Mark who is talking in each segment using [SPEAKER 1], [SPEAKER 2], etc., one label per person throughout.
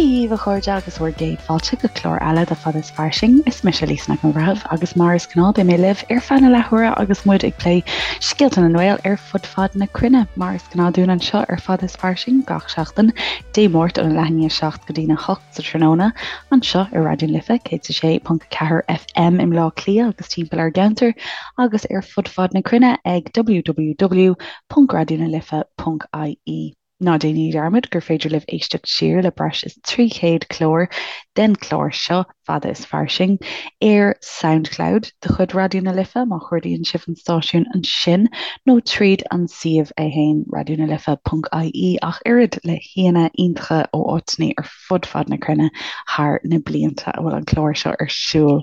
[SPEAKER 1] Dia dhaoibh a chairde agus bhur gcéad fáilte go clár eile de Fada is Fairsing. Is mise Lisa Nic an Bhreithimh agus mar is gnáth beidh mé libh ar feadh na leathuaire agus muid ag plé scéalta na nGael ar fud fad na cruinne. Mar is gnáth dúinn anseo ar Fada is Fairsing gach seachtain, Dé Máirt óna leath i ndiaidh 7 go dtína 8 sa tráthnóna anseo ar Raidió na Life 106.4 FM i mBleá Cliath agus timpeall ar an gceantar agus ar fud fad na cruinne ag www.raidionalife.ie. Ná déanaigí dearmad gur féidir libh éisteacht siar le breis is 300 clár den chlár seo, Fada is Fairsing, ar Soundcloud de chuid Raidió na Life má chuardaíonn sibh an stáisiún ansin nó tríd an suíomh é fhéin, raidionalife.ie, ach oiread le haíonna iontacha ó áiteanna ar fud fad na cruinne thar na blianta a bhfuil an clár seo ar siúl.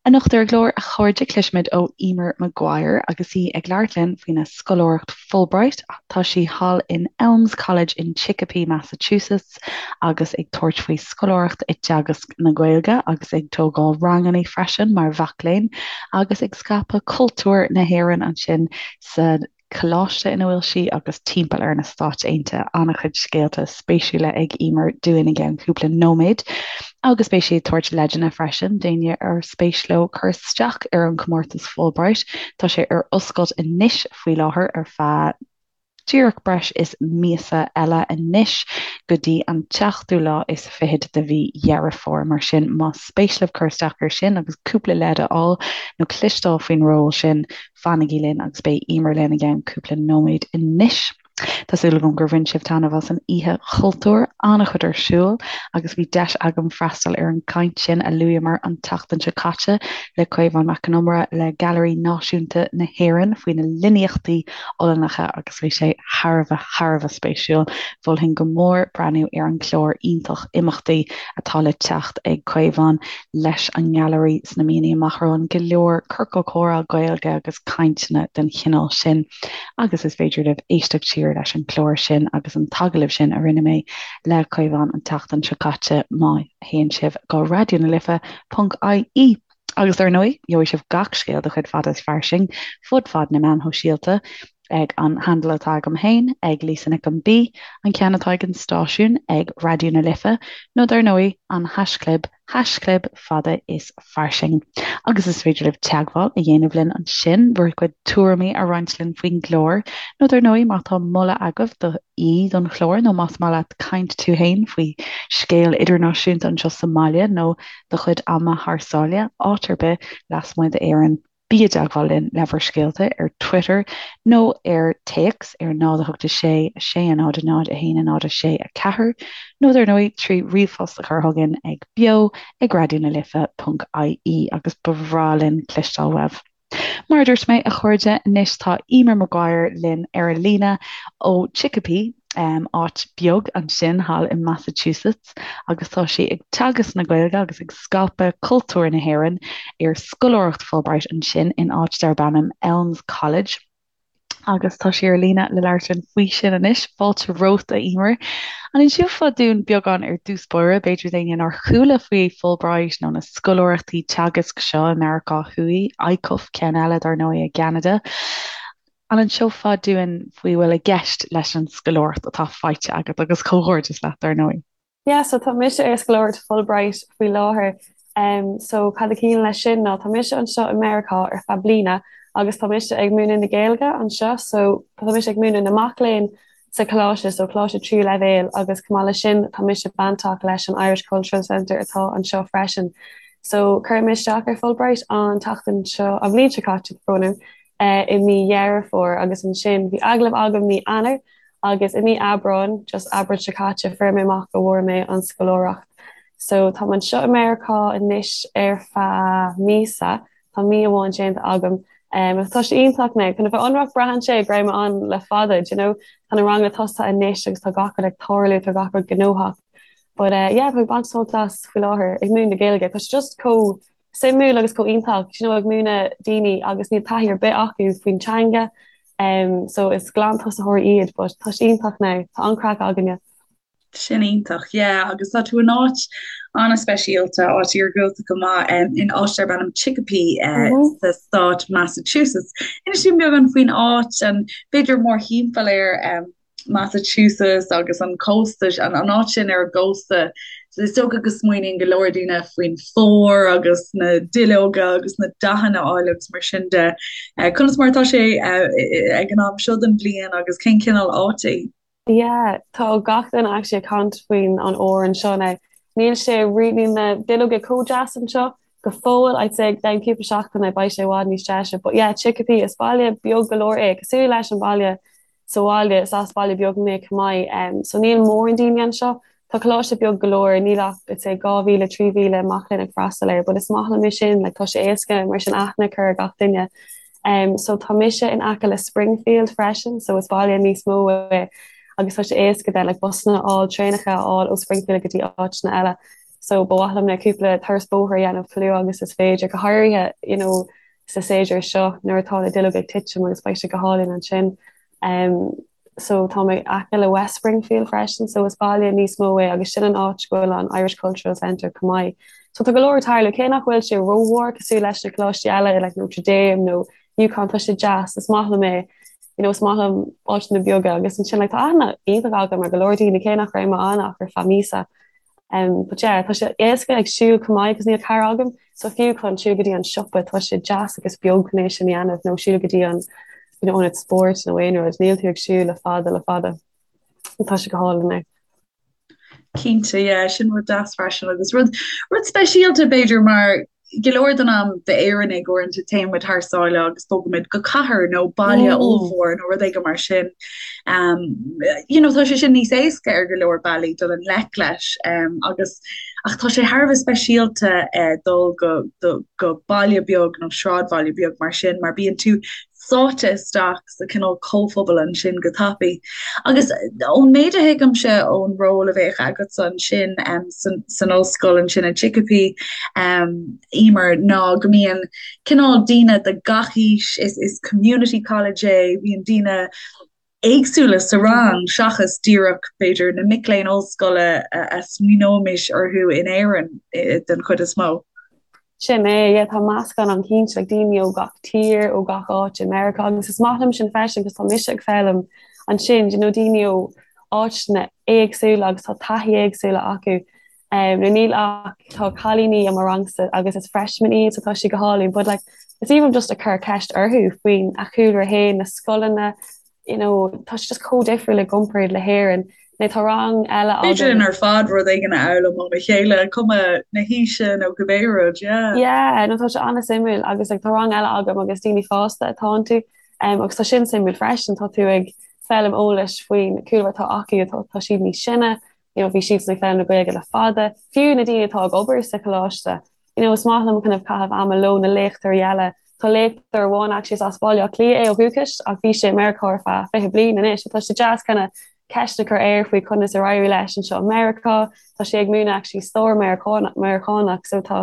[SPEAKER 1] Anocht ar an gclár, a chairde, cloisfimid ó Emer Maguire agus í ag labhairt linn faoina scoláireacht Fulbright. Tá sí thall in Elms College in Chicopee, Massachusetts agus ag tabhairt faoi scoláireacht i dteagasc na Gaeilge agus ag tógáil ranganna freisin mar mhac léinn agus ag scaipeadh cultúr na hÉireann ansin sa coláiste ina bhfuil sí agus timpeall ar na Stáit Aontaithe. An-chuid scéalta spéisiúla ag Emer dúinn i gceann cúpla nóiméad agus beidh sí ag tabhairt leideanna freisin d'éinne ar spéis leo cur isteach ar an chomórtas Fulbright. Tá sé ar oscailt anois faoi láthair ar feadh díreach breis is míosa eile anois go dtí an tseachtú lá is fichead de mhí Dheireadh Fómhair. Mar sin más spéis libh cur isteach air sin agus cúpla leid a fháil nó cloisteáil faoin ról sin, Fanaigí linn agus beidh Emer linn i gceann cúpla nóiméad anois. Tá súil agam gur bhain sibh taitneamh as an Oíche Chultúir, an-chuid ar siúl agus bhí deis agam freastal ar an gcaint sin a luaíomar an tseachtain seo caite le Caomhán Mac Con Iomaire le Gailearaí Náisiúnta na hÉireann faoi na líníochtaí Ollannacha agus bhí sé thar a bheith, thar a bheith spéisiúil. Mholfainn go mór breathnú ar an gclár iontach imeachtaí atá le teacht ag Caomhán leis an nGailearaí sna míonna amach romhainn, go leor ciorcal comhrá Gaeilge agus cainteanna den chineál sin agus is féidir libh éisteacht siar leis an gclár sin agus an t-agallamh sin a rinne mé le Caomhán an tseachtain seo caite má théann sibh go raidionalife.ie. Agus dar ndóigh, gheobhaidh sibh gach scéal de chuid Fada is Fairsing fud fad na meán shóisialta ag an handle atá agam féin, ag Lisa Nic an B, an ceann atá ag an stáisiún, ag Raidió na Life, nó dar ndóigh, an haischlib, haischlib fada is fairsing. Agus is féidir libh teagmháil a dhéanamh linn ansin, bhur gcuid tuairimí a roinnt linn faoin gclár, nó dar ndóigh, má tá moladh agaibh do aoi don chlár, nó más maith leat caint tú féin faoi scéal idirnáisiúnta anseo sa mbaile, nó do chuid ama thar sáile, áit ar bith lasmuigh d'Éirinn. Bí i dteagmháil linn le bhur scéalta ar Twitter nó ar téacs ar 0 8 6 6 0 0 1 0 6 4 nó dar ndóigh trí ríomhphost a chur chugainn ag beo ag raidionalife.ie agus ba bhreá linn cloisteáil uaibh. Mar a dúirt mé, a chairde, anois tá Emer Maguire linn ar an líne ó Chicopee, áit beag ansin thall i Massachusetts agus tá sí ag teagasc na Gaeilge agus ag scaipeadh cultúr na hÉireann ar scoláireacht Fulbright ansin in áit darb ainm Elms College agus tá sí ar líne le labhairt linn faoi sin anois. Fáilte romhat, a Emer. An inseofá dúinn beagán ar dtús báire, b'fhéidir d'éinne nár chuala faoi Fulbright nó na scoláireachtaí teagaisc seo i Meiriceá Thuaidh, ICUF, ceann eile dar ndóigh i gCeanada. An inseofá dúinn faoi bhfuil i gceist leis an scoláireacht atá faighte agat agus comhghairdeas leat dar ndóigh.
[SPEAKER 2] Yeah, so tá mise ar scoláireacht Fulbright faoi láthair. Um, so cad a chiallaíonn leis sin ná tá mise anseo i Meiriceá ar feadh bliana agus tá mise ag múineadh na Gaeilge anseo, so tá mise ag múineadh na mac léinn sa choláiste, so coláiste tríú leibhéal agus chomh maith leis sin tá mise bainteach leis an Irish Cultural Centre atá anseo freisin. So chuir mé isteach ar Fulbright an tseachtain seo, an bhliain seo caite, brón orm, i mí Dheireadh Fómhair agus ansin bhí agallamh agam mí Eanáir agus i mí Aibreáin, just Aibreán seo caite, fuair mé amach go bhfuair mé an scoláireacht. So táim anseo i Meiriceá anois ar feadh míosa, tá mí amháin déanta agam. Um, tá sé iontach now, chun a bheith ionraic braitheann sé go raibh mé ann le fada, do you know, tá na ranganna tosaithe anois agus tá gach rud ag tarlú, tá gach rud gnóthach. But uh, yeah, tá mé ag baint sult as faoi láthair ag múineadh na Gaeilge, tá sé just chomh suimiúil agus chomh iontach, you know, ag múineadh daoine agus níl taithí ar bith acu faoin teanga, um, so is glantosaitheoirí iad, but tá sé iontach now, tá an-craic againne.
[SPEAKER 3] Sin iontach, yeah, agus tá tú in áit an-speisialta, áit iargúlta go maith, um, in áit darb ainm Chicopee uh, mm -hmm. sa stát Massachusetts. Inis dúinn beagán faoin áit an b'fhéidir mórthimpeall air um, Massachusetts agus an cósta, an áit sin ar an gcósta, is dócha go smaoiníonn go leor daoine faoin bhfómhar agus na duilleoga agus na dathanna áille agus mar sin de. Conas mar atá sé ag an am seo den bhliain agus cén cineál áit í?
[SPEAKER 2] Yeah, tá gach duine actually ag caint faoin an fhómhar anseo now. Níl sé rí, níl na duilleoga chomh deas anseo go fóill, I'd say i gceann cúpla seachtaine beidh sé i bhfad níos deise. But yeah, Chicopee, is baile beag go leor é, cosúil leis an baile sa bhaile, is as baile beag mé chomh maith, so níl mórán daoine anseo. Tá coláiste beag go leor, níl ach I'd say 2,000, 3,000 mac léinn ag freastal air, but is maith liom é sin, like tá sé éasca mar sin aithne a chur ar gach duine. So tá mise in aice le Springfield freisin, so is baile níos mó é agus tá sé éasca then like busanna a fháil, traenacha a fháil ó Springfield go dtí áiteanna eile. So ba mhaith liom na cúpla turas bóthair a dhéanamh chomh luath agus is féidir, go háirithe you know sa séasúr seo nuair atá na duilleoga ag titim agus beidh sé go hálainn ansin. So tá mé aice le West Springfield freisin so is baile níos mó é agus sin an áit go bhfuil an Irish Cultural Centre chomh maith. So tá go leor ag tarlú, cé nach bhfuil sé rómhór cosúil leis na coláistí eile like Notre Dame nó UConn tá sé deas, is maith liom é, you know is maith liom áiteanna beaga agus ansin like tá aithne iontach agam ar go leor daoine cé nach raibh mé ann ach ar feadh míosa. Um, but yeah, tá sé éasca ag siúl chomh maith agus níl carr agam, so fiú chun siúl go dtí an siopa tá sé deas agus beag chun é sin a dhéanamh nó siúl go dtí an you know, ionad spóirt nó aon rud, níl tú ag siúl le fada le fada. Tá sé go hálainn é.
[SPEAKER 3] Cinnte, yeah, sin rud deas freisin agus rud rud speisialta b'fhéidir mar go leor den am d'Éireannaigh uaireanta téann muid thar sáile agus bogaimid go cathair nó baile ollmhór nó rud éigin mar sin. Um, you know, tá sé sin níos éasca ar go leor bealaí dul i ngleic leis um, agus ach tá sé thar a bheith speisialta uh, dul go, do, go baile beag nó sráidbhaile beag mar sin mar bíonn tú sáite isteach sa cineál comhphobal ansin go tapaidh. Agus ón méid a thuigimse ón ról a bheadh agatsa ansin san ollscoil ansin i Chicopee, Emer, ná go mbíonn cineál daoine de gach aois, is community college é, bíonn daoine éagsúla sa rang seachas díreach, b'fhéidir, na mic léinn ollscoile a smaoineoimis orthu in Éirinn den chuid is mó.
[SPEAKER 2] Sin é, yeah, tá meascán ann cinnte, like daoine ó gach tír, ó gach áit i Meiriceá agus is maith liom sin freisin cos tá mise ag foghlaim ansin, you know, daoine ó áiteanna éagsúla agus tá taithí éagsúla acu. Um, nó níl ach tá cailíní i mo rangsa agus is freshmen iad so tá sé go hálainn, but like is even just ag cur ceist orthu faoin a chúlra féin, na scoileanna, you know, tá sé just chomh difriúil i gcomparáid le hÉirinn. Nó tá rang eile
[SPEAKER 3] Féidir linn ar fad rud éigin a fhoghlaim óna chéile, cuma na haoise nó cibé rud,
[SPEAKER 2] yeah. Yeah, no tá sé an-suimiúil agus like, tá rang eile agam agus daoine fásta atá iontu um, agus tá sin suimiúil freisin, tá tú ag foghlaim eolais faoin cúlra atá acu, tá, tá siad níos sine, you know, bhí siad ag foghlaim na Gaeilge le fada, fiú na daoine atá ag obair sa choláiste, you know, is maith liom kind of caitheamh ama leo na léachtóirí eile. Tá léachtóir amháin actually is as Baile Átha Cliath é ó dhúchas ach bhí sé i Meiriceá ar feadh 20 bliain anois so tá sé deas kind of ceist a chur air faoi conas ar éirigh leis anseo i Meiriceá. Tá sé ag múineadh actually stair Meiriceánach so tá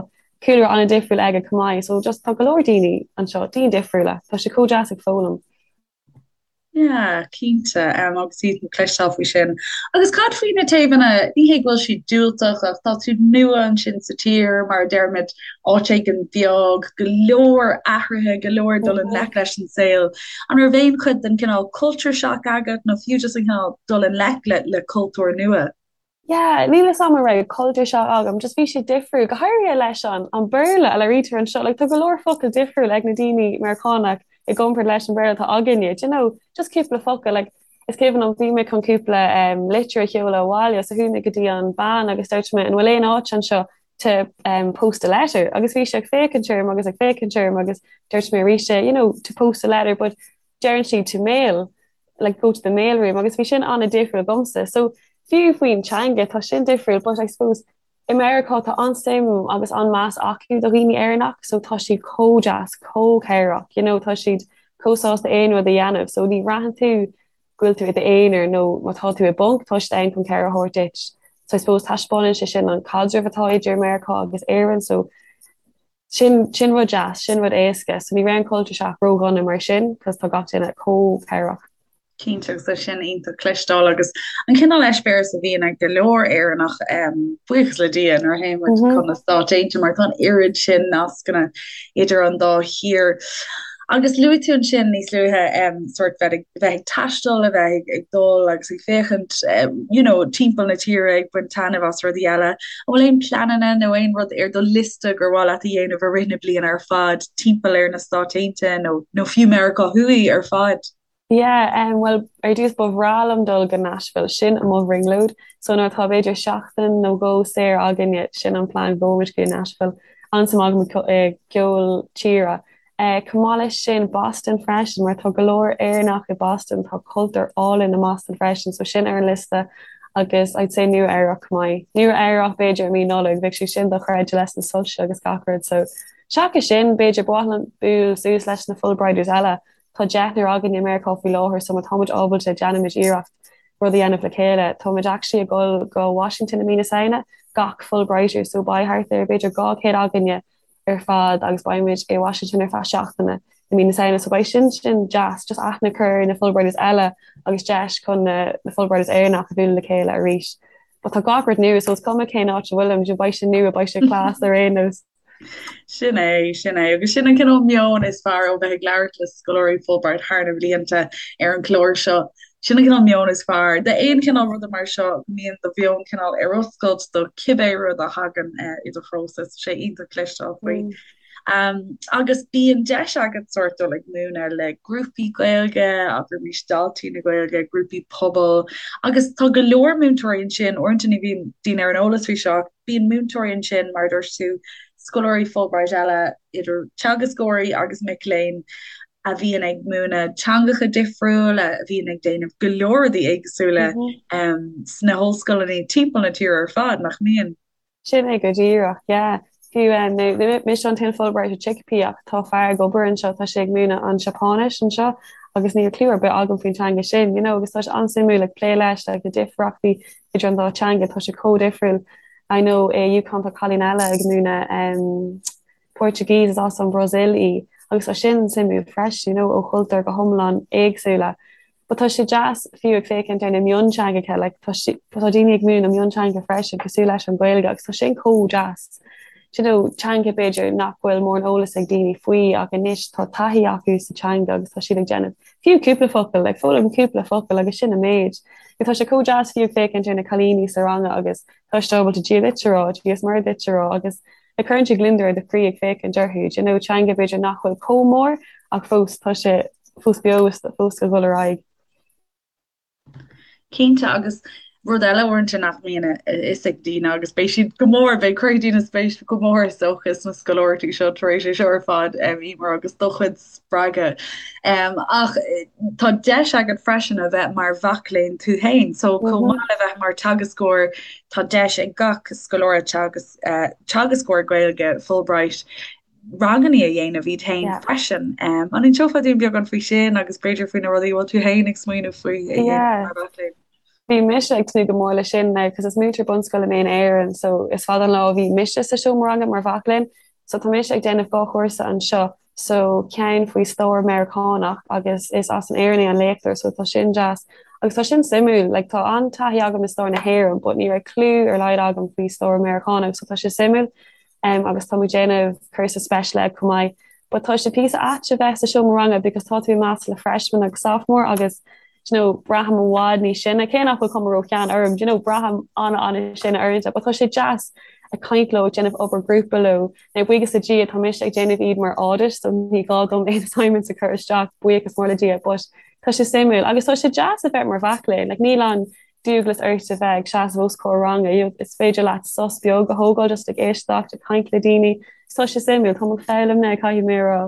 [SPEAKER 2] cúlra an-difriúil aige chomh maith so just tá go leor daoine anseo, daoine difriúla. Tá sé chomh deas ag foghlaim.
[SPEAKER 3] Yeah, cinnte, agus iontach cloisteáil faoi sin. Agus cad faoi na taobhanna, ní hé go bhfuil siad diúltach ach tá tú nua ansin sa tír, mar a deirimid, áit éigin beag, go leor athruithe, go leor dul i ngleic leis an saol. An raibh aon chuid den cineál culture shock agat nó fiú just an cineál dul i ngleic le le cultúr nua?
[SPEAKER 2] Yeah, níl fhios a'm an raibh culture shock agam, just bhí sé difriúil, go háirithe leis an an Béarla a labhraítear anseo, like tá go leor focal difriúil ag na daoine Meiriceánach i gcomparáid leis an Bhéarla atá againne, do you know, just cúpla focal, like is cuimhin liom bhí mé chun cúpla um, litir a sheoladh abhaile so chuaigh mé go dtí an bean agus dúirt mé an bhfuil aon áit anseo to um, post a letter agus bhí sé ag féachaint orm agus ag féachaint orm agus dúirt mé arís you know, to post a letter but deireann siad to mail like go to the mail room agus bhí sin an-difriúil domsa. So fiú faoin teanga tá sin difriúil but I suppose i Meiriceá tá an-suim agus an-meas acu do dhaoine Éireannach so tá siad chomh deas, chomh cabhrach, you know, tá siad chomh sásta aon rud a dhéanamh so ní bhraitheann tú go bhfuil tú i d'aonar nó má tá tú i bponc tá siad ann chun cabhair a thabhairt duit. So I suppose taispeánann sé sin an caidreamh atá idir Meiriceá agus Éirinn so Sin, sin rud deas, sin rud éasca. So ní raibh an culture shock ródhona mar sin, cos tá gach duine chomh cabhrach.
[SPEAKER 3] Cinnte, agus tá sin iontach cloisteáil agus an cineál eispéireas a bhíonn ag go leor Éireannach, buíochas le Dia, nuair a théann muid chun na Stáit Aontaithe mar tá an oiread sin nascanna idir an dá thír. Agus luaigh tú ansin níos luaithe sórt bheith ag bheith ag taisteal, a bheith ag dul agus ag féachaint you know timpeall na tíre ag baint taitneamh as rudaí eile. An bhfuil aon pleananna nó aon rud ar do liosta gur mhaith leat a dhéanamh i rith na bliana ar fad timpeall ar na Stáit Aontaithe nó nó fiú Meiriceá Thuaidh ar fad?
[SPEAKER 2] Yeah, em, bhuel, ar dtús ba bhreá liom dul go Nashville, sin mo bhrionglóid. So nuair atá b'fhéidir seachtain nó dhó saor againne, sin an plean, go muid go Nashville. An-suim agam i gceol tíre. Eh, chomh maith leis sin, Boston freisin, mar tá go leor Éireannach i Boston, tá cultúr álainn i mBoston freisin, so sin ar an liosta agus I'd say Nua Eabhrac chomh maith. Nua Eabhrac b'fhéidir i mí Nollag, bheadh sé sin dochreidte leis na soilse agus gach rud, so seachas sin, b'fhéidir ba mhaith liom bualadh suas leis na Fulbrighters eile. Tá deichniúr againn i Meiriceá faoi láthair so má tá muid ábalta déanfaimid iarracht rud a dhéanamh le chéile. Tá muid actually ag dul go Washington i mí na Samhna, gach Fulbrighter, so beidh thart ar b'fhéidir 200 againne ar fad agus beidh muid i Washington ar feadh seachtaine i mí na Samhna so beidh sin sin deas, just aithne a chur ar na Fulbrighters eile agus deis chun na na Fulbrighters Éireannach a bhualadh le chéile arís. But tá gach rud nua so is cuma cén áit a bhfuilim, beidh sé nua, beidh sé class ar aon nós.
[SPEAKER 3] Sin é, sin é. Agus sin an cineál meon is fearr ó bheith ag labhairt le scoláirí Fulbright thar na blianta ar an chlár seo. Sin an cineál meon is fearr. D'aon chineál ruda mar seo, go mbíonn do mheon cineál ar oscailt do cibé rud a thagann i do threo. Tá sé iontach cloisteáil faoi. Agus bíonn deis agat sórt dul ag múineadh le grúpaí Gaeilge, abraimis Daltaí na Gaeilge, grúpaí pobail, agus tá go leor múinteoirí ansin, uaireanta ní bhíonn daoine ar an eolas faoi seo, ach bíonn múinteoirí ansin, mar a dúirt tú, scoláirí Fulbright eile, idir teagascóirí agus mic léinn, a bhíonn ag múineadh teangacha difriúla, a bhíonn ag déanamh go leor rudaí éagsúla sna hollscoileanna timpeall na tíre ar fad, nach mbíonn?
[SPEAKER 2] Sin é go díreach, yeah. Fiú ní mise an t-aon Fulbright i Chicopee ach tá fear ag obair anseo, tá sé ag múineadh an Seapáinis anseo agus níl clue ar bith agam faoin teanga sin, you know, agus tá sé an-suimiúil ag plé leis, like na difríochtaí idir an dá teanga, tá sé chomh difriúil. I know i UConn tá cailín eile ag múineadh um, Portuguese is as an Bhrasaíl í agus tá sin suimiúil freisin, you know, ó chultúir go hiomlán éagsúla. But tá sé deas fiú ag féachaint ar na mionteangacha, like tá sí, tá daoine ag múineadh mionteanga freisin cosúil leis an Ghaeilge agus tá sin chomh deas. Do you know, teanga b'fhéidir nach bhfuil mórán eolas ag daoine faoi ach anois tá taithí acu sa teanga agus tá siad ag déanamh fiú cúpla focal, like foghlaim cúpla focal agus sin an méid. Tá sé chomh deas fiú ag féachaint ar na cailíní sa ranga agus tá siad ábalta Dia duit a rá, Dia is Muire duit a rá agus like cuireann sé gliondar ar do chroí ag féachaint orthu, do you know, teanga b'fhéidir nach bhfuil chomh mór ach fós tá sé fós beo is fós ag dul ar aghaidh.
[SPEAKER 3] Cinnte, agus rud eile uaireanta nach mbíonn a fhios ag daoine agus beidh siad go mór, beidh cuirfidh daoine spéis go mór is dócha sna scoláireachtaí seo tar éis é seo ar fad, Emer, agus do chuid spreagadh. Ach tá deis agat freisin a bheith mar mhac léinn tú féin, so chomh maith le bheith mar teagascóir, tá deis ag gach scoláire teagasc teagascóir Gaeilge Fulbright ranganna a dhéanamh iad féin freisin. An inseofá dúinn beagán faoi sin agus b'fhéidir faoi na rudaí a bhfuil tú féin ag smaoineamh faoi a dhéanamh mar mhac léinn?
[SPEAKER 2] Bhí mise ag tnúth go mór leis sin now cos is múinteoir bunscoile mé in Éirinn so is fada an lá ó bhí mise sa seomra ranga mar mhac léinn so tá mise ag déanamh 2 chúrsa anseo so ceann faoi stair Meiriceánach agus is as an Éirinn é an léachtóir so tá sin deas agus tá sin suimiúil like tá an-taithí agam i stair na hÉireann but ní raibh clue ar laghad agam faoi stair Meiriceánach so tá sé suimiúil um, agus tá muid déanamh cúrsa special ed chomh maith but tá sé píosa ait a bheith sa seomra ranga because tá tú i measc le freshman agus sophomore agus do you know, braithim i bhfad níos sine, cé nach bhfuil cuma ró-shean orm, do you know, braithim an-an-sine uaireanta, but tá sé deas ag caint leo, ag déanamh obair grúpa leo. Now, buíochas le Dia, tá mise ag déanamh iad mar audit, so ní gá dom aon assignments a chur isteach, buíochas mór le Dia, but tá sé suimiúil. Agus tá sé deas a bheith mar mhac léinn, like, níl an dualgas ort a bheith ag seasamh os comhair ranga, you know, is féidir leat sos beag a thógáil just ag éisteacht, ag caint le daoine, so tá sé suimiúil, táim ag foghlaim now, caithfidh mé a rá.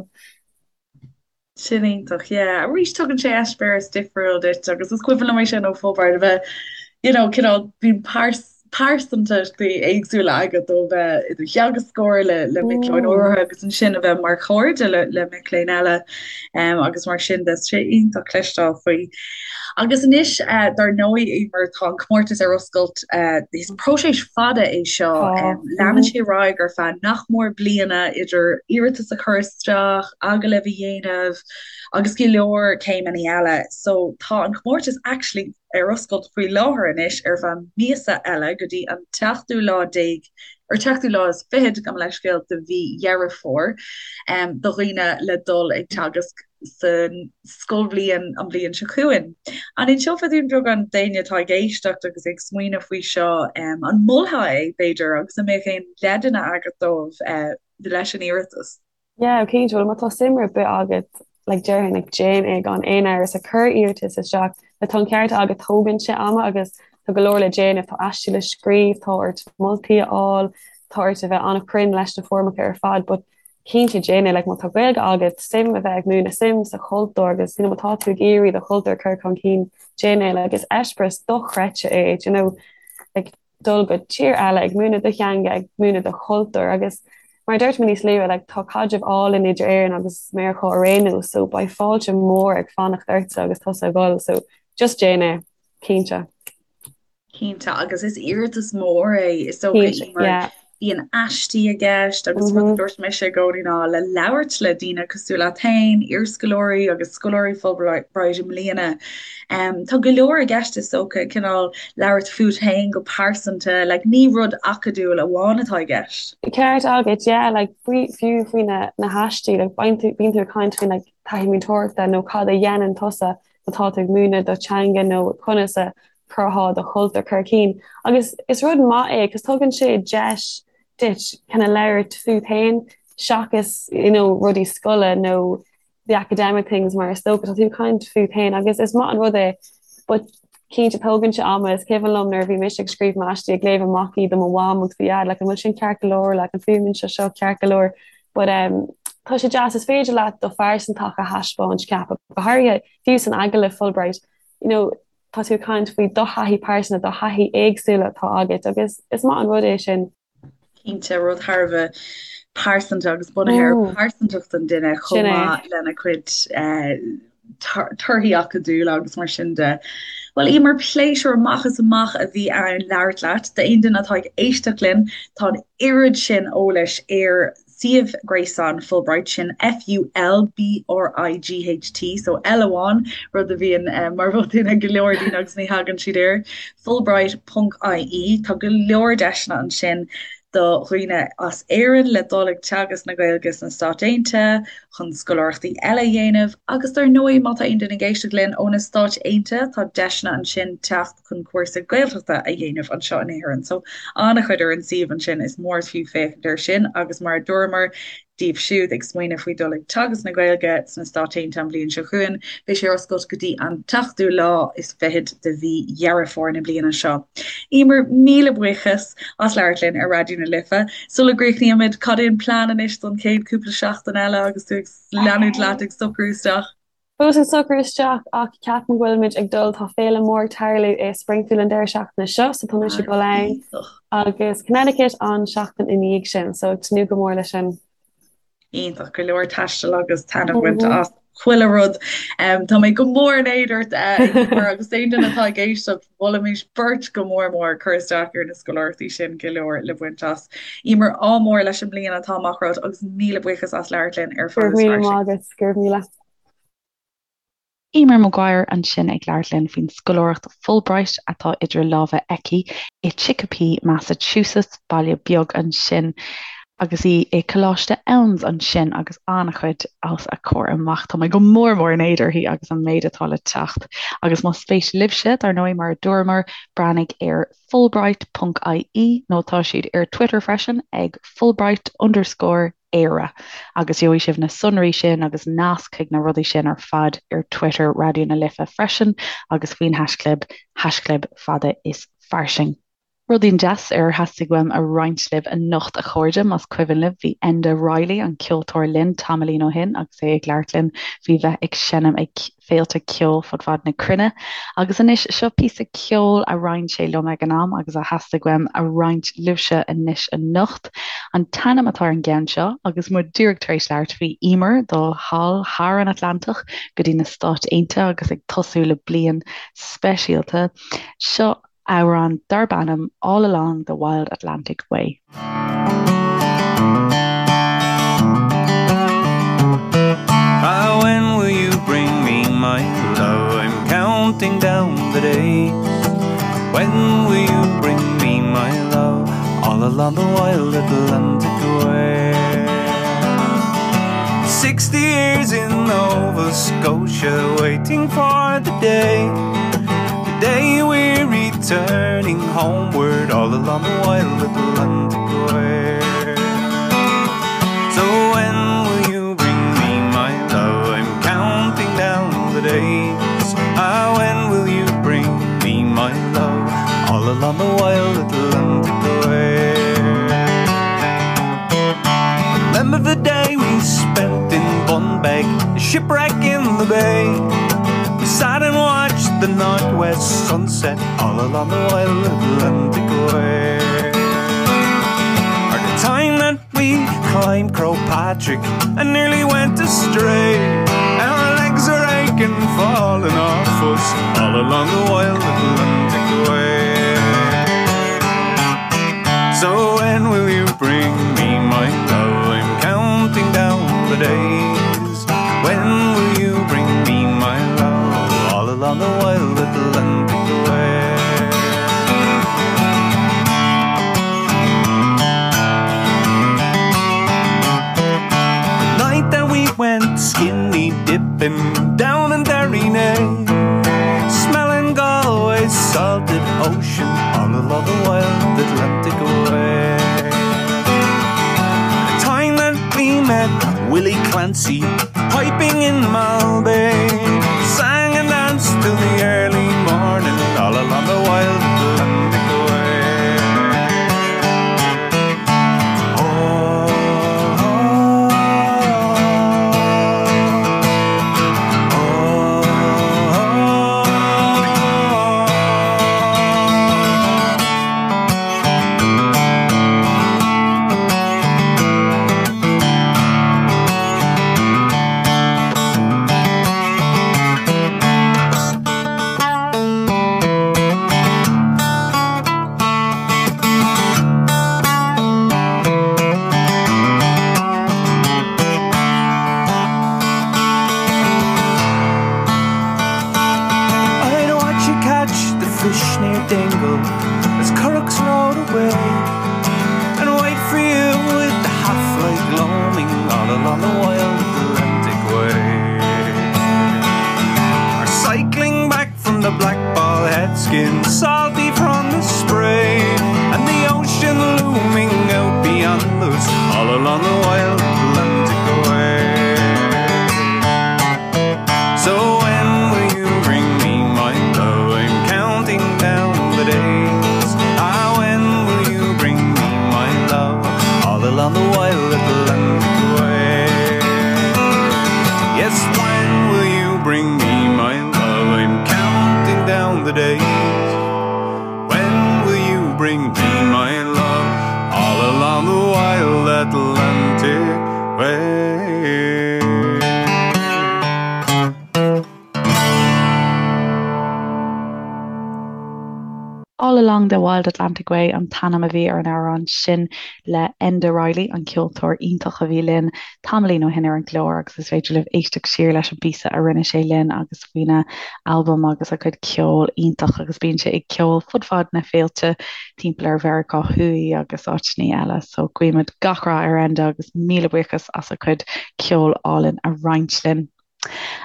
[SPEAKER 3] Sin iontach, yeah. Arís tugann sé eispéireas difriúil duit agus is cuimhin liom é sin ó Fulbright a bheith, you know, cineál, bíonn pearsantachtaí éagsúla agat ó bheith i do theagascóir le le mic léinn áirithe agus ansin a bheith mar chairde le le mic léinn eile um, agus mar sin de. Sé iontach cloisteáil faoi. Agus anois, uh, dar ndóigh, Emer, tá an comórtas ar oscailt, uh, is próiseas fada é seo, um, leanann sé ar aghaidh ar feadh nach mór bliana idir iarratas a chur isteach, agallamh a dhéanamh agus go leor céimeanna eile. So tá an comórtas actually ar oscailt faoi láthair anois ar feadh míosa eile go dtí an tseachtú lá déag, or tseachtú lá is fichead, gabh mo leithscéal, de mhí Dheireadh Fómhair, do dhaoine le dul ag teagasc san scoilbhliain an bhliain seo chugainn. An inseofá dúinn beagán d'éinne atá ag éisteacht agus ag smaoineamh faoi seo, an molfá é, b'fhéidir, agus an mbeadh aon leideanna agat dóibh leis an iarratas?
[SPEAKER 2] Yeah, cinnte, bhuel má tá suim ar bith agat, like déarfainn, like déan é gan aon amhras, like cuir iarratas isteach, like tá an ceart agat, tógann sé ama agus tá go leor le déanamh, tá aistí le scríobh, tá ort moltaí a fháil, tá ort a bheith an-chruinn leis na foirmeacha ar fad, but cinnte déan é, like má tá Gaeilge agat, suim a bheith ag múineadh, suim sa chultúr agus you know má tá tú ag iarraidh do chultúr a chur chun cinn, déan é, like is eispéireas dochreidte é, do you know, like dul go tír eile, ag múineadh do theanga, ag múineadh do chultúr agus mar a dúirt mé níos luaithe, like tá caidreamh álainn idir Éirinn agus Meiriceá ar aon nós so beidh fáilte mór ag fanacht ortsa agus tusa ag dul so just déan é, cinnte.
[SPEAKER 3] Cinnte, agus is iarratas mór é, is dócha,
[SPEAKER 2] Cinnte,
[SPEAKER 3] mar
[SPEAKER 2] yeah.
[SPEAKER 3] bíonn aistí i gceist agus rud a dúirt mise i gcónaí ná le labhairt le daoine cosúil leat féin, iarscoláirí agus scoláirí Fulbright i mbliana. Tá go leor i gceist is dócha, cineál labhairt fút féin go pearsanta, like ní rud acadúil amháin atá i gceist.
[SPEAKER 2] Ceart agat, yeah, like faoi, fiú faoi na, na haistí, like bíonn tú, bíonn tú ag caint faoi like taithí múinteoireachta nó cad a dhéanann tusa má tá tú ag múineadh do theanga nó conas a chuirfeá do chultúr chun cinn. Agus is rud maith é cos tugann sé deis duit kind of labhairt fút féin seachas you know rudaí scoile nó the academic things mar is dócha tá tú ag caint fút féin agus is maith an rud é but cinnte tógann sé ama is cuimhin liom nuair a bhí mise ag scríobh m'aistí ag léamh amach iad do mo mham agus do dhaid like an bhfuil sin ceart go leor like an fuaimníonn sé seo ceart go leor but um tá sé deas is féidir leat do phearsantacht a thaispeáint ceapaim go háirithe fiú san agallamh Fulbright you know tá tú ag caint faoi do thaithí pearsanta, do thaithí éagsúla atá agat agus is maith an rud é sin.
[SPEAKER 3] Cinnte, rud thar a bheith pearsanta agus bunaithe ar phearsantacht an duine chomh maith lena cuid torthaí acadúla agus mar sin de. Bhuel, Emer, pléisiúr amach is amach a bhí ann labhairt leat. D'aon duine atá ag éisteacht linn, tá an oiread sin eolais ar suíomh gréasáin Fulbright, sin F-U-L-B-R-I-G-H-T, so L amháin, rud a bhíonn mar bhotún ag go leor daoine agus ní thagann siad air, fulbright ponc ie. Tá go leor deiseanna ansin do dhaoine as Éirinn le dul ag teagasc na Gaeilge sna Stáit Aontaithe, chun scoláireachtaí eile a dhéanamh agus dar ndóigh má tá aon duine ag éisteacht linn ó na Stáit Aontaithe, tá deiseanna ansin teacht chun cúrsa Gaeltachta a dhéanamh anseo in Éirinn. So an-chuid ar an suíomh ansin, is mór is fiú féachaint air sin agus mar a dúramar daoibh siúd ag smaoineamh faoi dul ag teagasc na Gaeilge sna Stáit Aontaithe an bhliain seo chugainn, beidh sé ar oscailt go dtí an tseachtú lá is fichead de mhí Dheireadh Fómhair na bliana seo. Emer, míle buíochas as labhairt linn ar Raidió na Life. Sula gcríochnaímid, cad é an plean anois don chéad cúpla seachtain eile agus tú ag leanúint leat ag socrú isteach?
[SPEAKER 2] Fós ag socrú isteach ach ceapaim go bhfuilimid ag dul, tá féile mór ag tarlú i Springfield an deireadh seachtaine seo so tá mise ag dul ann agus Connecticut an seachtain i ndiaidh sin so ag tnúth go mór leis sin.
[SPEAKER 3] Iontach, go leor taistil agus taitneamh a bhaint as chuile rud. Tá mé go mór in éad ort Emer agus aon duine atá ag éisteacht, mholfaimis beirt go mór mór cur isteach ar na scoláireachtaí sin, go leor le baint as. Emer, ádh mór leis an mbliain atá amach romhat agus míle buíochas as labhairt linn ar
[SPEAKER 2] Go raibh
[SPEAKER 3] Fada is
[SPEAKER 2] míle maith
[SPEAKER 3] Fairsing.
[SPEAKER 2] agat, go raibh míle.
[SPEAKER 1] Emer Maguire ansin ag labhairt linn faoin scoláireacht Fulbright atá idir lámha aici i Chicopee, Massachusetts, baile beag ansin, agus í i Coláiste Eoin's ansin agus an-chuid os a comhair amach. Tá mé go mór mór in éad uirthi agus an méid atá le teacht. Agus más spéis libhse, dar ndóigh, mar a dúramar, breathnaigh ar fulbright ponc ie nó tá siad ar Twitter freisin ag fulbright underscore Éire agus gheobhaidh sibh na sonraí sin agus nasc chuig na rudaí sin ar fad ar Twitter Raidió na Life freisin agus faoin haischlib, haischlib fada is fairsing. Rudaí deas ar theastaigh uaim a roinnt libh anocht a chairde, más cuimhin libh bhí Enda Reilly, an ceoltóir linn tamaillín ó shin agus é ag labhairt linn faoi bheith ag seinm ag féilte ceoil fud fad na cruinne. Agus anois, seo píosa ceoil a roinn sé liom ag an am agus a theastaigh uaim a roinnt libhse anois anocht. An t-ainm atá ar an gceann seo, agus muid díreach tar éis labhairt faoi Emer dul thall thar an Atlantach go dtí na Stáit Aontaithe agus ag tosú le bliain speisialta, seo amhrán darb ainm All Along the Wild Atlantic Way.
[SPEAKER 4] Ah, when will you bring me my love? I'm counting. counting down the days. When will you bring me my love all along the wild Atlantic way? 60 years in Nova Scotia waiting for the day The day we're returning homeward all along the wild Atlantic way. So when will you bring me my love? I'm counting down the days. Ah, when will you bring me my love all along the wild Atlantic way? Remember the day we spent in Bunbeg, the shipwreck in the bay. We sat and watched the northwest sunset all along the wild Atlantic way. Or the time that we climbed Crow Patrick and nearly went astray. Our legs are aching, falling off us all along the wild Atlantic way. So when will you bring me my love? I'm counting down the days. When will you bring me my love? All along the wild Atlantic way. The night that we went skinny dipping down in Derrynea, smelling Galway's salted ocean all along the wild Atlantic way. The time that we met Willie Clancy piping in Malbay, sang and danced till the early morning all along the wild Atlantic way. Oh, oh, I'd watch you catch the fish near Dingle as currachs rowed away and wait for you with the half-light gloaming all along the wild Atlantic way. Or cycling back from the Black Ball head skin, salty from the spray, and the ocean looming out beyond us all along the wild Atlantic way. So when will you bring me my love? I'm counting down the days. Ah, when will you bring me my love? All along the wild Atlantic way. Yes, when will you bring me my love? I'm counting down the days. When will you bring me my love? All along the wild Atlantic way.
[SPEAKER 1] All Along the Wild Atlantic Way an t-ainm a bhí ar an amhrán sin le Enda Reilly, an ceoltóir iontach a bhí linn tamaillín ó shin ar an gclár agus is féidir libh éisteacht siar leis an bpíosa a rinne sé linn agus faoina albam agus a chuid ceoil iontach agus bíonn sé ag ceol fud fad na féilte timpeall ar Mheiriceá Thuaidh agus áiteanna eile so guímid gach rath ar Enda agus míle buíochas as a chuid ceoil álainn a roinnt linn.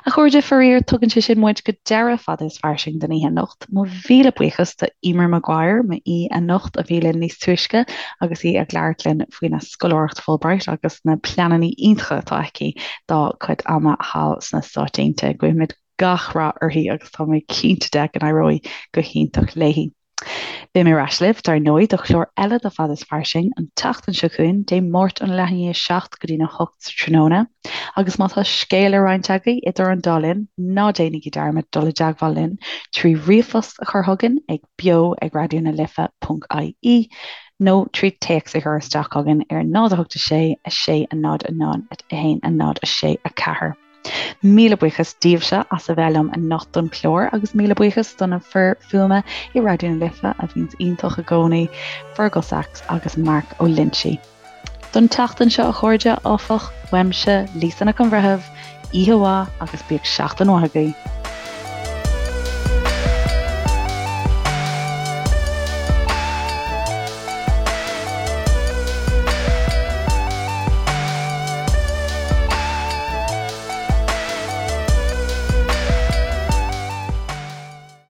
[SPEAKER 1] A chairde, faraor, tugann sé sin muid go deireadh Fada is Fairsing don oíche anocht. Mo mhíle buíochas do Emer Maguire, m'aoi anocht, a bhí linn níos túisce agus í ag labhairt linn faoina scoláireacht Fulbright agus na pleananna iontacha atá aici dá cuid ama thall sna Stáit Aontaithe. Guímid gach rath uirthi agus tá mé cinnte de go n-éireoidh go hiontach léi. Beidh mé ar ais libh, dar ndóigh, do chlár eile de Fada is Fairsing an tseachtain seo chugainn, Dé Máirt óna leath i ndiaidh a 7 go dtína 8 sa tráthnóna. Agus má tá scéal le roinnt agaibh idir an dá linn, ná déanaigí dearmad dul i dteagmháil linn trí ríomhphost a chur chugainn ag beo ag raidió na life ponc ie nó trí téacs a chur isteach chugainn ar 0 8 6 6 0 0 1 0 6 4. Míle buíochas daoibhse as a bheith liom anocht don chlár agus míle buíochas do na fir fuaime i Raidió na Life a bhíonns iontach i gcónaí, Fergal Sachs agus Mark Ó Loinsigh. Don tseachtain seo a chairde, áfach, uaimse, Lisa Nic an Bhreithimh, oíche mhaith agus bíodh seachtain mhaith agaibh.